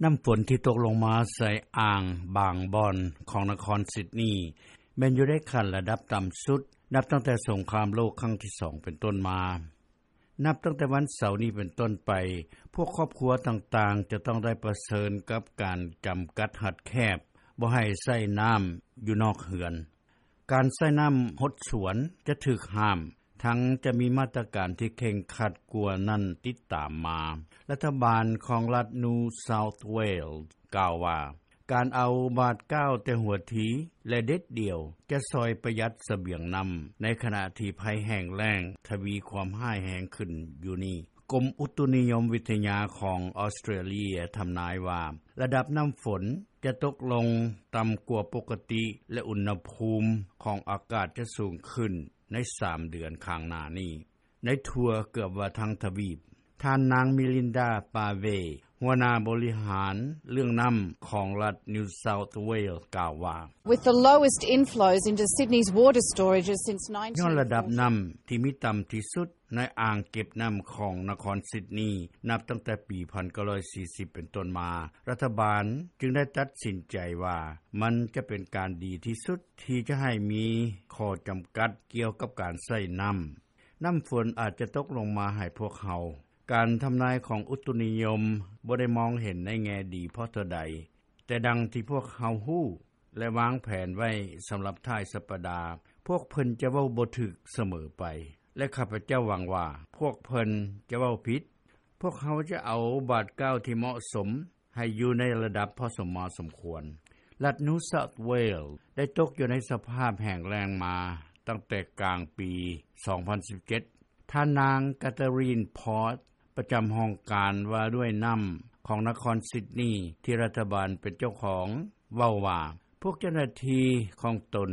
ນໍ້າຝົນທີ່ຕົກລົງມາໃສ່ອ່າງບາງບ່ອນຂອງນະຄອນຊິດນີ ແມ່ນຢູ່ໃນຂັ້ນລະດັບຕໍ່າສຸດ ນັບຕັ້ງແຕ່ສົງຄາມໂລກຄັ້ງທີສອງເປັນຕົ້ນມາ. ນັບຕັ້ງແຕ່ວັນເສົານີ້ເປັນຕົ້ນໄປ, ພວກຄອບຄົວຕ່າງໆ ຈະຕ້ອງໄດ້ປະເຊີນກັບການຈຳກັດຮັດແຄບ, ບໍ່ໃຫ້ໃຊ້ນໍ້າຢູ່ນອກເຮືອນ. ການໃຊ້ນໍ້າຫົດສວນຈະຖືກຫ້າມ, ທັງຈະມີມາດຕະການທີ່ເຄັ່ງຄັດກວ່ານັ້ນຕິດຕາມມາ. ລັດຖະບານຂອງລັດ New South Wales ກ່າວວ່າ, ການເອົາບາດກ້າວແຕ່ຫົວທີ ແລະ ເດັດດ່ຽວ ຈະຊ່ອຍປະຢັດສະບຽງນໍ້າ, ໃນຂະນະທີ່ໄພແຫ້ງແລ້ງທະວີຄວາມຮ້າຍແຮງຂຶ້ນຢູ່ນີ້. ກົມອຸຕຸນິຍົມວິທະຍາຂອງອອສເຕຣເລຍທຳນາຍວ່າ ລະດັບນໍ້າຝົນຈະຕົກລົງຕ່ຳກວ່າປົກກະຕິ ແລະ ອຸນນະພູມຂອງອາກາດຈະສູງຂຶ້ນໃນສາມເດືອນຂ້າງໜ້ານີ້ ໃນທົ່ວເກືອບວ່າທັງທະວີບ. ທ່ານນາງ Melinda Pavey ຫົວໜ້າບໍລິຫານເລື່ອງນໍ້າຂອງລັດ New South Wales ກ່າວວ່າ, With the lowest inflows into Sydney's water storages since ຍ້ອນລະດັບນໍ້າທີ່ມີຕໍ່າທີ່ສຸດໃນອ່າງເກັບນໍ້າຂອງນະຄອນຊິດນີ ນັບຕັ້ງແຕ່ປີໜຶ່ງພັນເກົ້າຮ້ອຍສີ່ສິບເປັນຕົ້ນມາ, ລັດຖະບານຈຶ່ງໄດ້ຕັດສິນໃຈວ່າ ມັນຈະເປັນການດີທີ່ສຸດທີ່ຈະໃຫ້ມີຂໍ້ຈຳກັດກ່ຽວກັບການໃຊ້ນໍ້າ. ນໍ້າຝົນອາດຈະຕົກລົງມາໃຫ້ພວກເຮົາ. ການທຳນາຍຂອງອຸຕຸນິຍົມບໍ່ໄດ້ມອງເຫັນໃນແງ່ດີພໍເທົ່າໃດ, ແຕ່ດັ່ງທີ່ພວກເຮົາຮູ້ ແລະ ວາງແຜນໄວ້ສຳລັບທ້າຍສັບປະດາ, ພວກເພິ່ນຈະເວົ້າບໍ່ຖືກສະເໝີໄປ ແລະ ຂ້າພະເຈົ້າຫວັງວ່າພວກເພິ່ນຈະເວົ້າຜິດ. ພວກເຮົາຈະເອົາບາດກ້າວທີ່ເໝາະສົມໃຫ້ຢູ່ໃນລະດັບພໍສົມມາສົມຄວນ. ລັດ New South Wales ໄດ້ຕົກຢູ່ໃນສະພາບແຫ້ງແລ້ງມາຕັ້ງແຕ່ກາງປີສອງພັນສິບເຈັດ. ທ່ານນາງ Catherine Pott ປະຈຳຫ້ອງການວ່າດ້ວຍນໍ້າຂອງນະຄອນຊິດນີ ທີ່ລັດຖະບານເປັນເຈົ້າຂອງ ເວົ້າວ່າ ພວກເຈົ້າໜ້າທີ່ຂອງຕົນ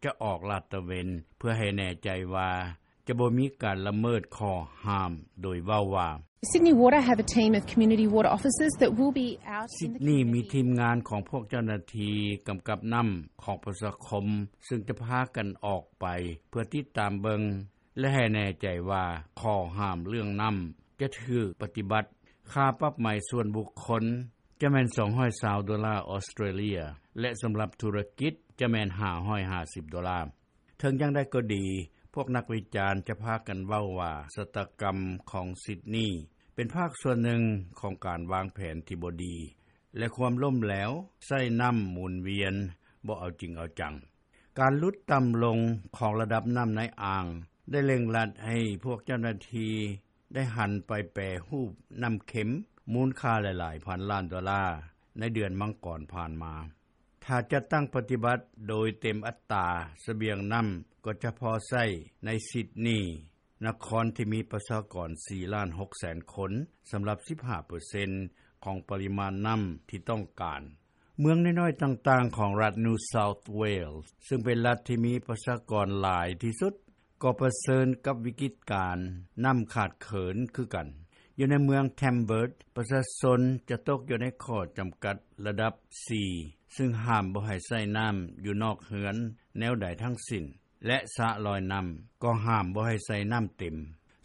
ຈະອອກລາດຕະເວນ ເພື່ອໃຫ້ແນ່ໃຈວ່າຈະບໍ່ມີການລະເມີດຂໍ້ຫ້າມ, ໂດຍເວົ້າວ່າ, Sydney Water have a team of community water officers that will be out in the community. ຊິດນີມີທີມງານຂອງພວກເຈົ້າໜ້າທີ່ກຳກັບນໍ້າຂອງປະຊາຄົມ ຊຶ່ງຈະພາກັນອອກໄປເພື່ອຕິດຕາມເບິ່ງ ແລະ ໃຫ້ແນ່ໃຈວ່າຂໍ້ຫ້າມເລື່ອງນໍ້າຈະຖືກປະຕິບັດ. ຄ່າປັບໃໝສ່ວນບຸກຄົນຈະແມ່ນສອງຮ້ອຍຊາວໂດລາອອສເຕຣເລຍ ແລະ ສຳລັບທຸລະກິດຈະແມ່ນຫ້າຮ້ອຍຫ້າສິບໂດລາ. ເຖິງຢ່າງໃດກໍດີ, ພວກນັກວິຈານຈະພາກັນເວົ້າວ່າຊະຕາກຳຂອງຊິດນີເປັນພາກສ່ວນໜຶ່ງຂອງການວາງແຜນທີ່ບໍ່ດີ ແລະ ຄວາມລົ້ມແຫຼວໃຊ້ນໍ້າໝູນວຽນບໍ່ເອົາຈິງເອົາຈັງ. ການຫຼຸດຕ່ຳລົງຂອງລະດັບນໍ້າໃນອ່າງ ໄດ້ເລັ່ງລັດໃຫ້ພວກເຈົ້າໜ້າທີ່ໄດ້ຫັນໄປແປຮູບນໍ້າເຄັມມູນຄ່າຫຼາຍໆພັນລ້ານໂດລາໃນເດືອນມັງກອນຜ່ານມາ. ຖ້າຈັດຕັ້ງປະຕິບັດໂດຍເຕັມອັດຕາ, ສະບຽງນໍ້າກໍຈະພໍໃຊ້ໃນຊິດນີ, ນະຄອນທີ່ມີປະຊາກອນສີ່ລ້ານຫົກແສນຄົນ, ສຳລັບສິບຫ້າເປີເຊັນຂອງປະລິມານນໍ້າທີ່ຕ້ອງການ. ເມືອງນ້ອຍໆຕ່າງໆຂອງລັດ New South Wales ຊຶ່ງເປັນລັດທີ່ມີປະຊາກອນຫຼາຍທີ່ສຸດ ກໍປະເຊີນກັບວິກິດການນໍ້າຂາດເຂີນຄືກັນ. ຢູ່ໃນເມືອງ Tamworth ປະຊາຊົນຈະຕົກຢູ່ໃນຂໍ້ຈຳກັດລະດັບສີ່ ຊຶ່ງຫ້າມບໍ່ໃຫ້ໃຊ້ນໍ້າຢູ່ນອກເຮືອນແນວໃດທັງສິ້ນ ແລະ ສະລອຍນໍ້າກໍຫ້າມບໍ່ໃຫ້ໃຊ້ນໍ້າເຕັມ.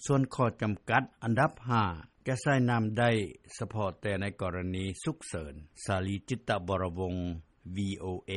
ສ່ວນຂໍ້ຈຳກັດອັນດັບຫ້າ ຈະໃຊ້ນໍ້າໄດ້ສະເພາະແຕ່ໃນກໍລະນີສຸກເສີນ. ສາລີ ຈິດຕະວໍລະວົງ ວີໂອເອ.